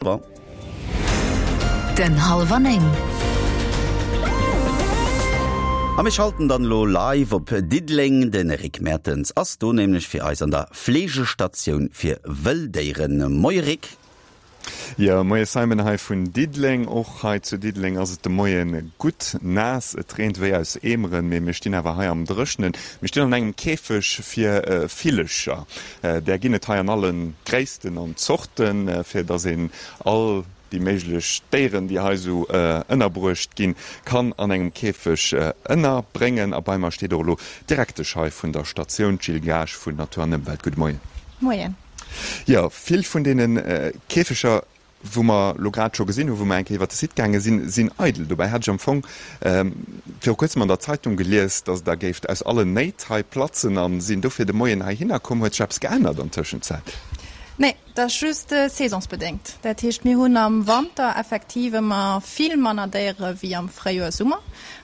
Den Hallwer 9. A mir schalten dann elo live op Diddeleng. De Rick Mertens ass do nämlech fir eis an der Fleegestatioun fir wëll Déieren. Moie Rick. Jo, moie Simon hei vun Diddeleng. Och hei zu Diddeleng ass et de Moie gutt naass. Et reent wéi aus Eemeren, mee mir stinn awer hei am Dréchnen. Mir stinn an engem Käfeg fir Villecher. Där ginn et hei an alle Gréissten an Zorten, fir dass een all déi méiglech Déieren, déi hei esou ënnerbruecht ginn, kann an engem Käfeg ënnerbréngen. A bei mer steet och elo d'Direktesch hei vun der Statioun, d'Jill Gaasch vun Natur an Ëmwelt. Gudde Moien. Moien. Jo, vill vun deene Käfeger wou mer elo grad scho gesinn hunn, wou mer eng Kéier iwwert de Site gaange sinn, sinn eidel. Dobäi hat ech am Fong viru kuerzem an der Zeitung gelies, datt Der géift aus allen Néit hei platzen a sinn dofir de Moien heihinner komm. Huet sech eppes geännert an Tëschenzäit? Nee, dat ass just saisonsbedéngt. Dat heescht, mir hunn am Wanter effektiv ëmmer vill manner Déiere wéi am Fréijoer, Summer.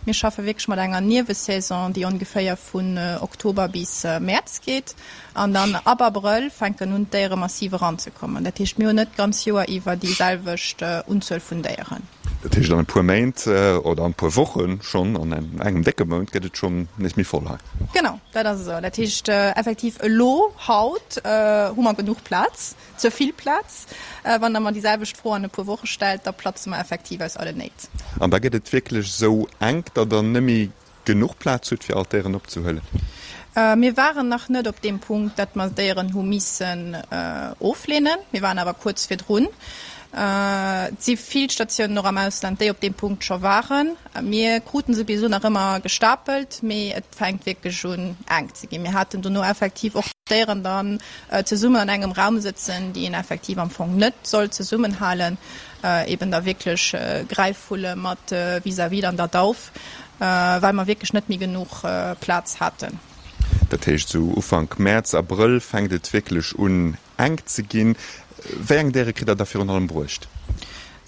Mir schaffe wierklech mat enger Niewesaison, déi ongeféier vun Oktober bis Mäerz geet. An dann ab Abrëll fänken un d'Déiere massiv eranzekommen. Dat heescht, mir hunn net d'ganz Joer iwwer déi selwecht Unzuel vun Déieren. Dat heescht, an e puer Méint oder an e puer Woche schonn, an engem décke Mount gëtt et schonn nees méi voll hei. Genau, dat ass esou. Dat heescht effektiv elo, haut, hu mer genuch Plaz, ze vill Plaz. Wann Der mer déi selwecht Fro an e puer Woche stellt, da platze mer effektiv aus allen Néit. An da gëtt et wierklech esou enk, datt Der net méi genuch Plaz hutt fir all d'Déieren opzehuelen? Mir waren nach net op deem Punkt, datt mer Déieren hu missen ofleenen. Mir waren awer kuerz virdrun. Et si vill Statiounen och am Ausland, déi op deem Punkt scho waren. Mir kruten se bis elo nach ëmmer gestapelt, mee et fänkt wierklech un enk ze ginn. Mir haten dono effektiv och Déieren dann zesummen an engem Raum sëtzen, déi een effektiv am Fong net soll zesummenhalen, eben da wierklech Gräifvulle mat vis-à-vis dann der Dauf. Well mer wierklech net méi genuch Plaz haten. Dat heescht, esou Ufank Mäerz, Abrëll fänkt et wierklech un enk ze ginn. Wéi eng Déiere kritt Der da virun allem bruecht?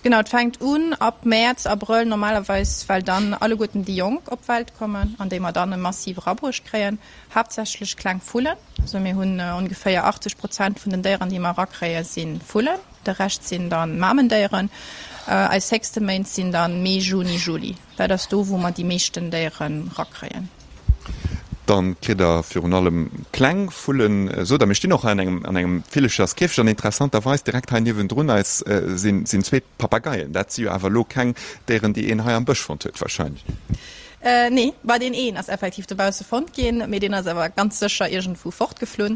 Genau, et fänkt un ab Mäerz, Abrëll normalerweis, well dann alleguerten déi Jonk op d'Welt kommen an déi mer dann massiv erabruecht kréien. Haaptsächlech kleng Vullen. Also mir hunn ongeféier 80 Prozent vun den Déieren, déi mer erakréien, si Vullen. De Rescht sinn dann Mamendéieren. Eis héchste Méint sinn dann Mee, Juni, Juli. Dat ass do, wou mer déi meeschten Déieren rakréien. Dann kritt der virun allem kleng Vullen. Sot der, mir stinn och hei an engem an engem Villecherskäfeg an interessanterweis direkt hei niewendrun eis sinn sinn zwee Papageien. Dat si jo awer elo keng Déieren, déi een hei am Bësch fonnt huet wahrscheinlech. Nee, bah deen een ass effektiv dobausse fonnt ginn, mee deen ass awer ganz sécher iergendwou fortgeflunn.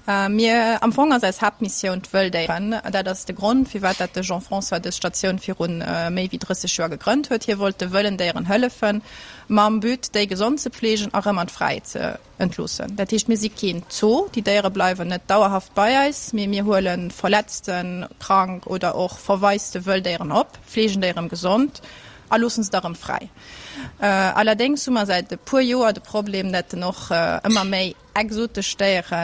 Mir, am Fong ass eis Haaptmissioun d'Wëlldéieren. Dat ass de Grond, firwat dat de Jean-François dës Statioun virun méi wéi 30 Joer gegrënnt huet. Hie wollt de wëllen Déieren hëllefen, mam But, déi gesond ze pfleegen a rëm an d'Fräiheet ze entloossen. Dat heescht, mir si keen Zoo, déi Déiere bleiwen net dauerhaft bei eis, mee mir huele verletzten, krank oder och verwaiste Wëlldéieren op, fleegen déi erëm gesond a loossen se da rëm fräi. Allerdéngs hu mer säit e puer Joer de Problem, dat en och ëmmer méi exotesch Déiere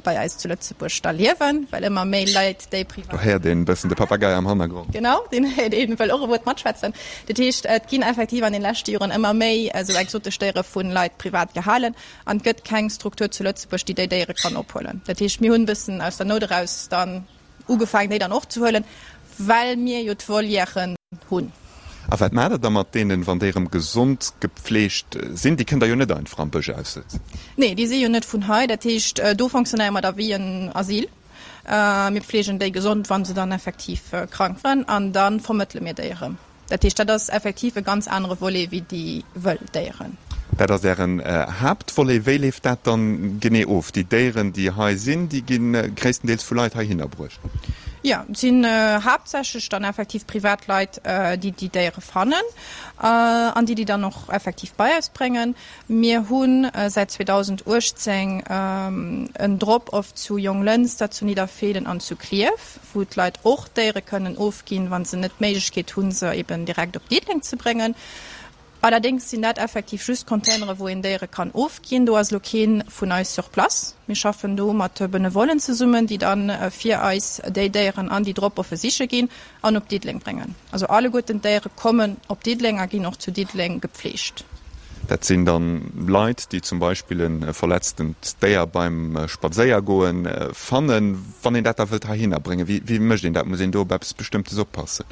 bei eis zu Lëtzebuerg da liewen, well ëmmer méi Leit déi privat. Do héiert een e bëssen de Papagei am Hannergrond. Genau, deen héiert een, wëll och e Wuert matschwätzen. Dat heescht, et ginn effektiv an den leschte Joren ëmmer méi esou exotesch Déiere vu Leit privat gehalen an et gëtt keng Struktur zu Lëtzebuerg, déi déi Déiere kann ophuelen. Dat heescht, mir hunn e bëssen aus der Nout eraus dann Ugefaangen déi dann och ze huelen, well mir jo d'Volièren hunn. A wat maacht der da mat deenen, wann déi erëm gesond gepfleegt sinn? Déi kënnt der jo net einfach am Bësch aussëtzen. Nee, déi si jo net vun hei. Dat heescht, do fonctionnéiere mer da wéi en Asyl. Mir pfleegen déi gesond, wa se dann effektiv krank waren, an da vermëttele mir déi erëm. Dat heescht, dat ass effektiv e ganz anere Volet wéi déi wëll Déieren. Dat ass Ären Haaptvolet. Wéi leeft dat dann genee of? Déi Déieren, déi hei sinn, déi gi gréisstendeels vu Leit heihinner bruecht? Jo, et sinn haaptsächlech dann effektiv privat Leit, déi déi Déiere fannen an déi déi dann och effektiv bei eis bréngen. Mir hu säit 2018 en Drop-off zu Jonglënster, zu Nidderfeelen an zu Klierf, wou d'Leit och Déiere kënnen ofginn, wa se net d'Méiglechkeet hunn, se eben direkt op Diddeleng ze bréngen. Allerdéngs sinn dat effektiv just Containere wou een Déiere kann ofginn. Do ass elo kee vun eis sur place. Mir schaffen do mat Benevollen zesummen, déi da fir eis déi Déieren an déi Drop-offe siche ginn an op Diddeleng bréngen. Also alleguerten d'Déiere kommen op Diddeleng a ginn och zu Diddeleng gepfleegt. Dat sinn dann Leit, déi zum Beispill e verletztent Déier beim Spadséiergoen fannen. Wann een dat da wëllt heihinner bréngen, wéi wéi mécht een dat? Muss een do op eppes Bestëmmtes oppassen?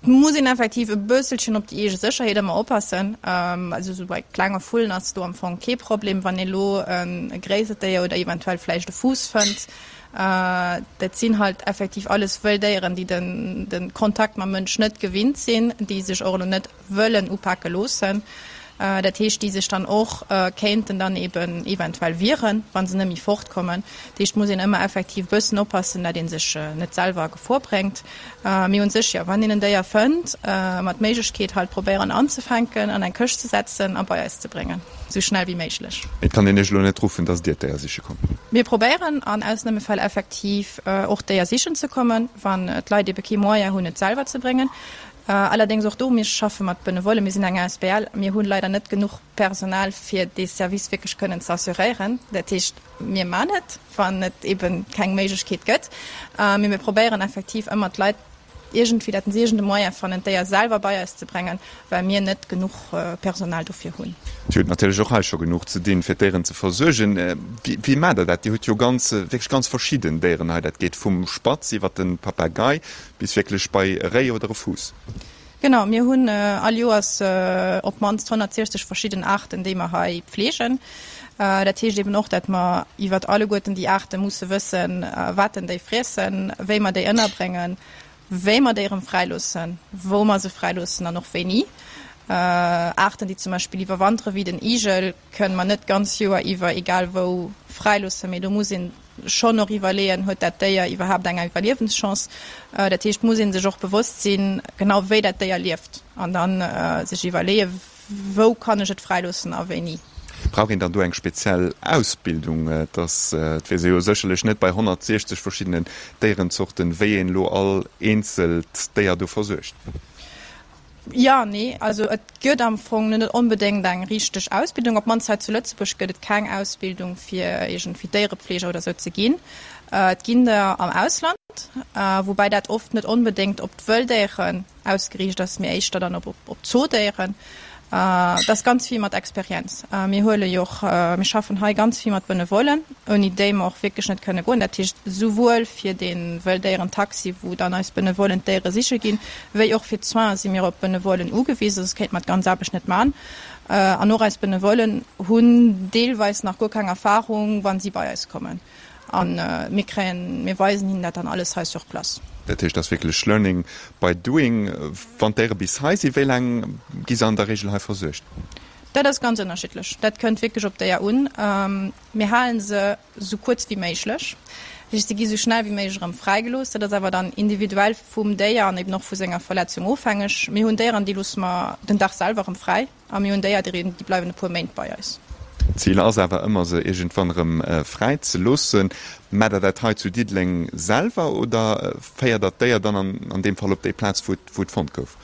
Et muss een effektiv e bësselchen op déi eege Sécherheet ëmmer oppassen. Also esou bei klenge Vullen ass do am Fong kee Problem. Wann ee lo e gréissert Déier oder eventuell vläicht e Fuuss fënnt, dat sinn halt effektiv alles wëll Déieren, déi den de Kontakt mam Mënsch net gewinnt sinn, déi sech och elo net wëllen upake loossen. Dat heescht, déi sech dann och kéinten dann eben eventuell wieren, wa se net méi fortkommen. Dat heescht, muss een ëmmer effektiv e bëssen oppassen, dat ee sech net selwer a Gefor bréngt. Mee un sech, jo, wann een en Déier fënnt, mat Méiglechkeet halt probéieren anzefänken, an eng Këscht ze setzen a bei eis ze bréngen, esou schnell wéi méiglech. Et kann een Iech elo net ruffen, dass Dir d'Déier siche kommt? Mir probéieren an Ausnamefäll effektiv och d'Déier sichen ze kommen, wann d'Leit ebe kee Moyen hunn, et selwer ze bréngen. Allerdéngs och do, mir schaffe mat Benevollen, mir sinn eng asbl, mir hunn leider net genuch Personal fir dee Service wierklech kënnen ze assuréieren. Dat heescht, mir man et, wann et eben keng Méiglechkeet gëtt, mee mir probéieren effektiv ëmmer d'Leit iergendwéi, dat se iergend e Moyen fannen, d'Déier selwer bei eis ze bréngen, well mir net genuch Personal dofir hunn. Dir hutt natierlech och hei scho genuch ze dinn, fir d'Déieren ze versuergen. Wéi maacht Der dat? Dir hutt jo ganz, wierklech ganz verschidden Déieren hei. Dat geet vum Spatz iwwer de Papagei Bis wierklech bei e Réi oder e Fuuss. Genau, mir hunn all Joers op d'mannst 160 verschidden Aarten, déi mer hei pfleegen. Dat heescht eben och, dat mer iwwert alleguerten déi Aarte musse wëssen, wat denn déi friessen, wéi mer déi ënnerbréngen, wéi mer déi erëm fräiloossen, wou mer se fräiloossen an och wéini. Aarten, déi zum Beispill iwwerwantere wéi den Igel, kënne mer net d'ganz Joer iwwer egal wou fräiloossen, mee do muss een schonn och iwwerleeën, huet dat Déier iwwerhaapt eng Iwwerliewenschance? Dat heescht, muss ee sech och bewosst sinn, genau wéi dat Déier lieft an da sech iwwerleeën, wou kann ech et fräiloossen a wéini. Brauch een dann do eng speziell Ausbildung? Et ass, et weess ee jo sécherlech net bei 160 verschiddenen Déierenzorten, wéi een elo all eenzelt Déier do versuergt. Jo, nee, also et gëtt am Fong net onbedéngt eng richteg Ausbildung. Op d'mannst hei zu Lëtzebuerg gëtt et keng Ausbildung fir iergendwéi Déierepfleger oder sou ze ginn. Et ginn der am Ausland, woubäi dat oft net onbedéngt op d'Wëlldéieren ausgeriicht ass, mee éischter dann op d'Zoodéieren. Et ass ganz vill mat Experienz. Mir huele jo och, mir schaffen hei ganz vill mat Benevollen, ouni déi mer och wierklech net kënne goen. Dat heescht souwuel fir dee Wëlldéierentaxi, wou dann eis Benevollen d'Déiere siche ginn, wéi och fir d'Soinen si mir op Benevollen ugewisen, soss kéinte mer d'ganz Aarbecht net man. An och eis Benevollen hunn deelweis nach guer keng Erfahrung, wa si bei eis kommen. A mir kréien, mir weisen hinnen dat dann alles hei sur place. Dat heescht, et ass wierklech learning by doing. Wann d'Déiere bis hei sinn, wéi laang gi se an der Reegel hei versuergt? Dat ass ganz ënnerschiddlech. Dat kënnt wierklech op d'Déier un. Mir halen se esou kuerz wéi méiglech. Dat heescht, se gi esou schnell wéi méiglech erëm fräigelooss. Dat ass awer dann individuell vum Déier an eben och vu senger Verletzung ofhängeg. Mir hunn Déieren, déi loosse mer den Dag selwer erëm fräi. A mir hunn déier, déi bleiwen e puer Méint bei eis. D'Zil ass awer ëmmer, se iergendwann erëm fräi ze loossen. Maacht Der dat hei zu Diddeleng selwer oder féiert Der d'Déier dann an deem Fall op déi Plaz, wou et fonnt gouf?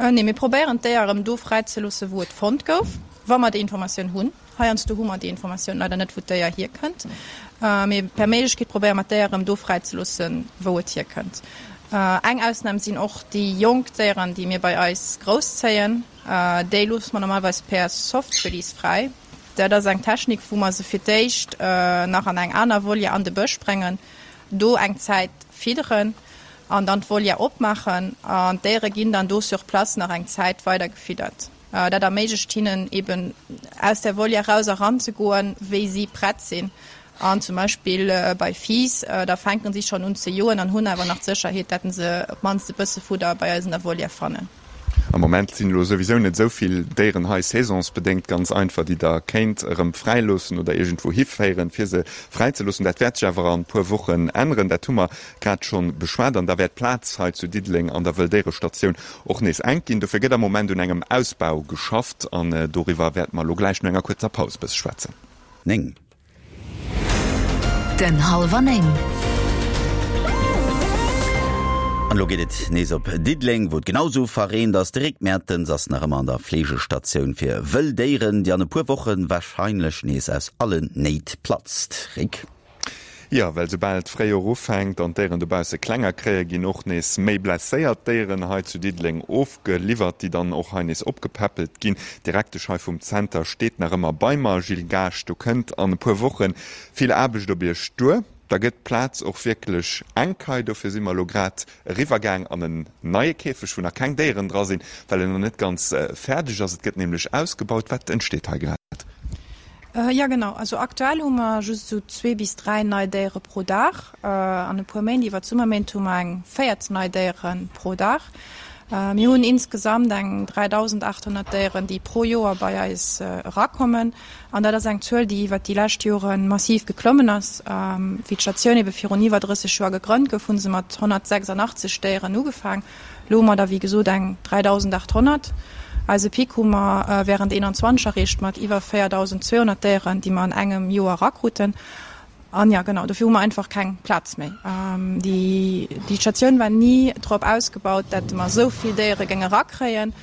Nee, mir probéieren d'Déier erëm do fräi ze loossen, wou et fonnt gouf, wa mer déi Informatioun hunn. Heiansdo hu mer déi Informatioun leider net, wou d'Déier hierkënnt. Mee per Méiglechkeet probéiere mer d'Déier erëm do fräi ze loossen, wou et hierkënnt. Eng Ausnam sinn och déi jonk Déieren, déi mir bei eis grousszéien. Déi loosse mer normalerweis per Soft Release fräi. Dat ass eng Technik, wou mer se fir d'éischt nach an eng aner Volière an de Bësch bréngen, do eng Zäit fidderen an dann d'Volière opmaachen. An d'Déiere ginn dann do sur place nach eng Zäit weider gefiddert. Dat erméiglecht hinnen eben aus der Volière raus eran ze goen, wéi si prett sinn. An zum Beispill bei Fiiss, da fänken si schonn un ze joen an hunn awer nach d'Sécherheet, datt se op d'mannst e bësse Fudder bei eis an der Volière fannen. Am Moment sinn elo souwisou net esou vill Déieren hei, saisonsbedéngt ganz einfach, déi Der kéint erëm fräiloossen oder iergendwou hiféieren, fir se fräizeloossen. Dat wäert sech awer an e puer Wochen änneren, dat hu mer grad schonn beschwat. An da wäert d'Plaz hei zu Diddeleng an der Wëlldéierestatioun och nees enk ginn. Dofir gëtt am Moment un engem Ausbau geschafft an doriwwer wäerte mer elo gläich no enger kuerzer Paus e bësse schwätzen. 9. Den Halwer 9. An elo geet et nees op Diddeleng, wou et genau sou verreent ass. De Rick Mertens ass nach ëmmer an der Fleegestatioun fir wëll Déieren, déi an e puer Woche warscheinlech nees aus allen Néit platzt. Rick. Jo, well soubal d'Fréijoer ufänkt an d'Déieren dobausse klenger kréien, ginn och nees méi blesséiert Déieren hei zu Diddeleng ofgeliwwert, déi dann och hei nees opgepäppelt ginn. D'Direktesch hei vum Zenter steet nach ëmmer bei mer. Gilles Gaasch, do kënnt an e puer Woche vill Aarbecht op Iech duer. Da gëtt d'Plaz och wierklech enk hei. Dofir si mer elo grad eriwwergaang an en neie Käfeg, wou nach keng Déieren dra sinn, well en nach net ganz fäerdeg ass. Et gëtt nämlech ausgebaut. Wat entsteet hei grad? Jo genau, also aktuell hu mer just esou zwee bis 3 nei Déiere pro Dag. An e puer Méint, iwwer d'Summerméint hu mer eng 14 nei Déiere pro Dag. Mir hunn insgesamt eng 3.800 Déieren, déi pro Joer bei eis erakommen. An dat ass eng Zuel, déi iwwer déi lescht Jore massiv geklommen ass. Wéi d'Statioun ebe virun iwwer 30 Joer gegrënnt gouf, hu se mat 186 Déieren ugefaang. Elo hu mer der wéi gesot eng 3.800. Eise Pic hu mer während 21 erreecht mat iwwer 4.200 Déieren, déi mer an engem Joer erakruten. An jo, genau, dofir hu mer einfach keng Plaz méi. Déi Statioun war ni drop ausgebaut, datt mer esou vill Déiere géinge erakréien.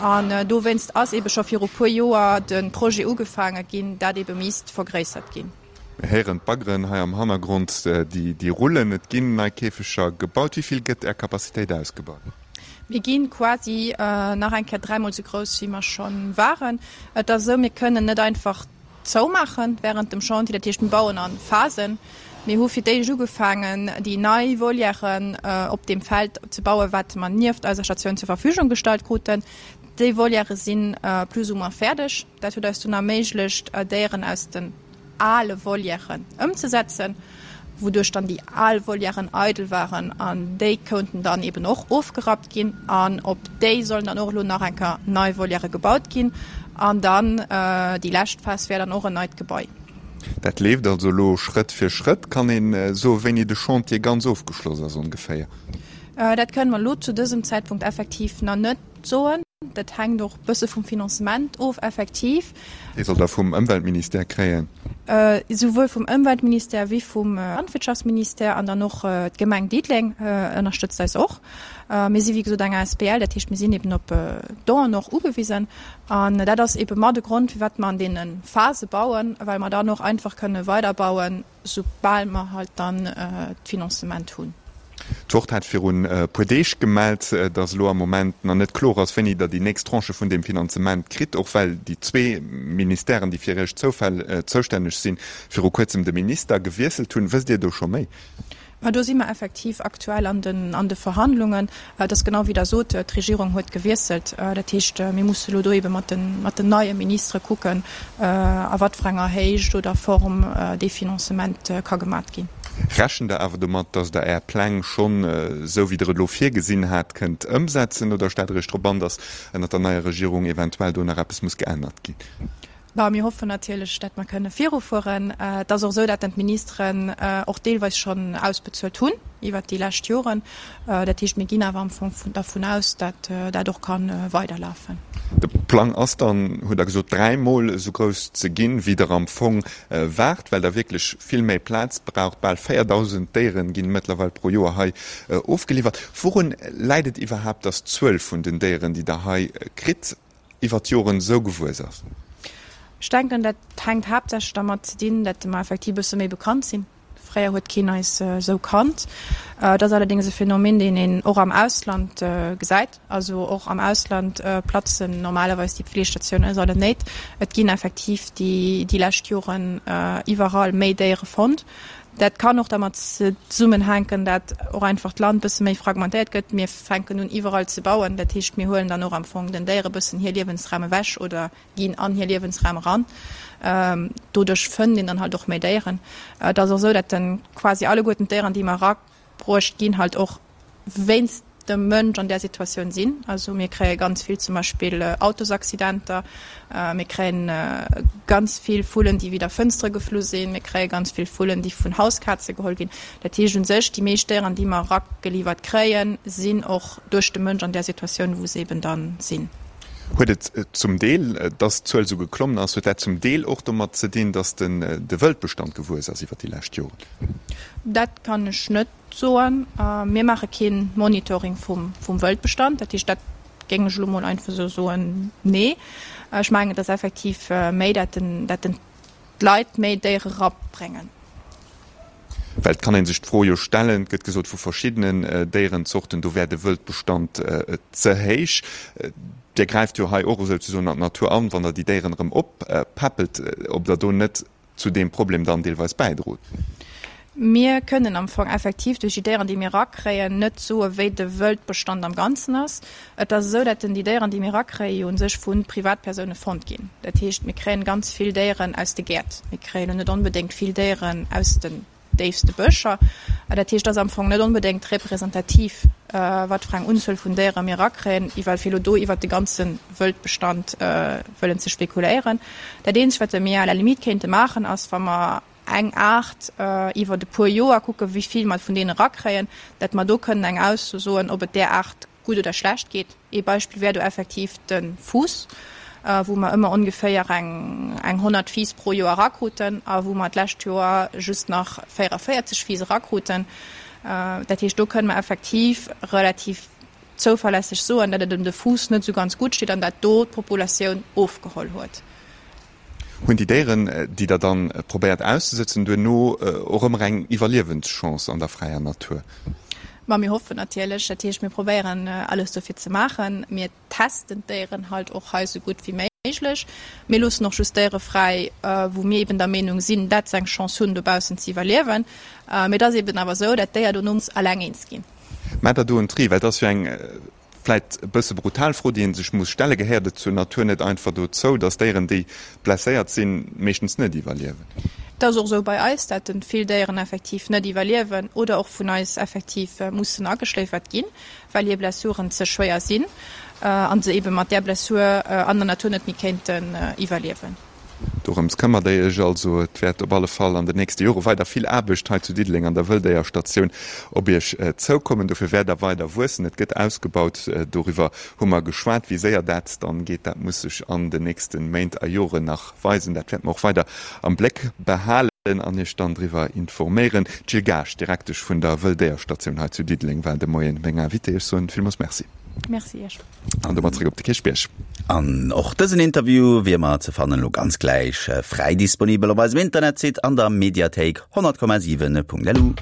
An dowéinst ass eebe scho viru puer Joer de Projet ugefaange ginn, dat eebe misst vergréissert ginn. Mir héieren d'Baggeren hei am Hannergrond, déi rullen. Et ginn nei Käfeger gebaut. Wéi vill gëtt Är Capacitéit ausgebaut? Mir gi quasi nach eng Kéier dräimol esou grouss, wéi mer scho waren. Et ass esou, mir kënnen net einfach zoumaache wärend dem Chantier. Dat heescht, mir bauen a Phasen. Mir hu fir d'éischt ugefaangen, déi nei Volièren op deem Feld ze bauen, wat mer nieft eiser Statioun zur Verfügung gestallt kruten. Déi Volièrë si plus ou moins fäerdeg. Dat huet eis dunn erméiglecht, Déieren aus den ale Volièren ëmzesetzen, wouduerch dann déi al Volièren eidel waren an déi kounten dann eben och ofgerappt ginn an op déi sollen dann och elo nach eng Kéier nei Volièrë gebaut ginn an dann déi lescht Phas wär dann och en neit Gebai. Dat leeft also elo Schrëtt fir Schrëtt. Kann een soen, wéini de Chantier ganz ofgeschloss ass ongeféier? Dat kënnen mer elo zu dësem Zäitpunkt effektiv nach net soen. Dat hänkt och bësse vum Financement of, effektiv. Dee sollt Der vum Ëmweltministère kréien? Souwuel vum Ëmweltministère wéi vum Landwirtschaftsministère an dann och d'Gemeng Diddeleng ënnerstëtzt eis och. Mir si wéi gesot eng asbl, dat heescht mir sinn eben op Donen och ugewisen. An dat ass ebe mat e Grond, firwat mer an deene Phase bauen, well mer dann och einfach kënne weiderbauen, soubal mer halt dann d'Financement hunn. D'Wort hat virun e puer Deeg gemellt, datt elo am Moment nach net kloer ass, wéini Der déi nächst Tranche vun deem Finanzement kritt, och well déi zwee Ministèren, déi fir Iech zoustänneg sinn, viru kuerzem de Minister gewiesselt hunn. Wësst Dir do scho méi? Ma do si mer effektiv aktuell an den, an de Verhandlungen. Et ass genau wéi Der sot, d'Regierung huet gewiesselt. Dat heescht, mir musse elo do ebe mat den, mat den neie Ministere kucken, a wat fir enger Héicht oder Form dee Financement ka gemat ginn. Rechent Der awer domat, datt Der Är Pläng schonn, esou wéi Der et elo virgesinn hat, kënnt ëmsetzen oder stellt Der Iech drop an, datt ënnert der neier Regierung eventuell do nach eppes muss geännert ginn? Bon, mir hoffen natierlech, datt mer kënne virufueren. Et ass och esou, datt d'Ministeren och deelweis schonn ausbezuelt hunn iwwert déi lescht Joren. Dat heescht, mir ginn awer am Fong dervun aus, datt dat och ka weiderlafen. De Plang ass dann, hutt Der gesot, dräimol esou grouss ze ginn, wéi Der am Fong waart, well Der wierklech vill méi Plaz braucht. Bal 4.000 Déiere ginn mëttlerweil pro Joer hei ofgeliwwert. Wourun läit et iwwerhaapt, datt d'Zuel vun den Déieren, déi Der hei kritt, iwwer d'Joren esou gewuess ass? Ech denken, dat hänkt haaptsächlech dermat ze dinn, datt mer effektiv e bësse méi bekannt sinn. Fréier huet keen eis esou kannt. Et ass allerdéngs e Phänomen, deen een och am Ausland gesäit. Also och am Ausland platzen normalerweis déi Pfleestatiounen aus aller Néit. Et ginn effektiv déi lescht Joren iwwerall méi Déiere fonnt. Dat kann och dermat zesummenhänken, dat och einfach d'Land bësse méi fragmentéiert gëtt. Mir fänken un iwwerall ze bauen. Dat heescht, mir huelen dann och am Fong den Déiere bëssen hir Liewensraum ewech oder ginn an hir Liewensraum eran. Doduerch fënnt een dann halt och méi Déieren. Et ass och esou, dat de quasi alleguerten d'Déieren, déi mer erabruecht ginn, halt och wéinst dem Mënsch an där Situatioun sinn. Also mir kréie ganz vill zum Beispill Autosaccidenter, mir kréien ganz vill Vullen, déi widder Fënstere geflu sinn, mir kréie ganz vill Vullen, déi vun Hauskaze geholl ginn. Dat heescht u sech, déi meescht Déieren, déi mer erageliwwert kréien, sinn och duerch de Mënsch an där Situatioun, wou se eben dann sinn. Huet et zum Deel, dass d'Zuel esou geklommen ass, huet dat zum Deel och domat ze dinn, dass de Wëldbestand gewuess ass iwwer déi lescht Joren? Dat kann ech net soen. Mir maache kee Monitoring vum Wëldbestand. Dat heescht, dat géing ech elo mol einfach esou soen, nee. Ech mengen, et ass effektiv méi, dat den, dat den d'Leit méi Déiere erabréngen. Well et kann ee sech d'Fro jo stellen, et gëtt gesot vu verschiddenen Déierenzorten, do wär de Wëldbestand ze héich. Dir gräift jo hei och esouzesoen an d'Natur an, wann Der déi Déieren erëm oppäppelt, ob Der do net zu deem Problem dann deelweis bäidrot. Mir kënnen am Fong effektiv duerch déi Déieren, déi mir erakréien, net soen, wéi de Wëldbestand am Ganzen ass. Et ass esou, dat déi Déieren, déi mir erakréien, jo u sech vu Privatpersoune fonnt ginn. Dat heescht, mir kréien ganz vill Déieren aus de Gäert. Mir kréien elo net onbedéngt vill Déieren aus den déifste Bëscher. Dat heescht, et ass am Fong net onbedéngt representativ, wat fir eng Unzuel vun Déiere mir erakréien, ewell fir elo do iwwert de ganze Wëldbestand wëllen ze spekuléieren. Dat eenzegt, wat mir à la limite kéinte maachen, ass, wa mer eng Aart iwwert e puer Joer kucken, wéi vill mer vun deenen erakréien, dat mer do kënnen eng Ausso soen, ob et där Aart gutt oder schlecht geet. Ee Beispill wär do effektiv de Fuuss, wou mer ëmmer ongeféier eng 100 Fiiss pro Joer erakruten a wou mer d'lescht Joer just nach 44 Fiiss erakruten. Dat heescht, do kënnen mer effektiv relativ zouverlässeg soen, datt et ëm de Fuuss net esou ganz gutt steet an dat do d'Populatioun ofgeholl huet. Hunn déi Déieren, déi Der dann probéiert auszesëtzen, duerno och ëmmer eng Iwwerliewenschance an der fräier Natur? Ma mir hoffen natierlech. Dat heescht, mir probéieren alles dofir ze maachen. Mir testen d'Déieren halt och hei esou gutt wéi méiglech. Mir loossen och just Déiere fräi, wou mir eben der Meenung sinn, dat se eng Chance hunn, dobaussen ze iwwerliewen. Mee et ass eben awer esou, dat d'Déier dono muss alleng eens ginn. Maacht Der do en Tri? Well et ass jo eng Vläit e bësse brutal Fro, déi ee sech muss stellen, Gehéiert et zur Natur net einfach dozou, dass Déieren, déi blesséiert sinn, meeschtens net iwwerliewen? Et ass och esou bei eis, dat vill Déieren effektiv net iwwerliewen oder och vun eis effektiv mussen ageschléifert ginn, well hir Blessuren ze schwéier sinn a se ebe mat där Blessur an der Natur net méi kéinten iwwerliewen. Dorëms këmmert der Iech also. Et wäert op alle Fall an den nächste Jore weider vill Aarbecht hei zu Diddeleng an der Wëlldéierstatioun op Iech zoukommen. Dofir wäert der weider wuessen. Et gëtt ausgebaut, doriwwer hu mer geschwat. Wéi séier dat dann geet, dat muss sech an den nächste Méint a Joren nach weisen. Dat wäerte mer och weider am Bléck behalen an Iech dann driwwer informéieren. D'Jill Gaasch, Direktesch vun der Wëlldéierstatioun hei zu Diddeleng, war de Moien meng Invitée. Ech soen villmools Merci. Merci Iech. An domat zréck op de Kierchbierg. An och dësen Interview wier mer ze fannen elo ganz gläich fräi disponibel op eisem Internetsite an der Mediathéik 100,7.lu.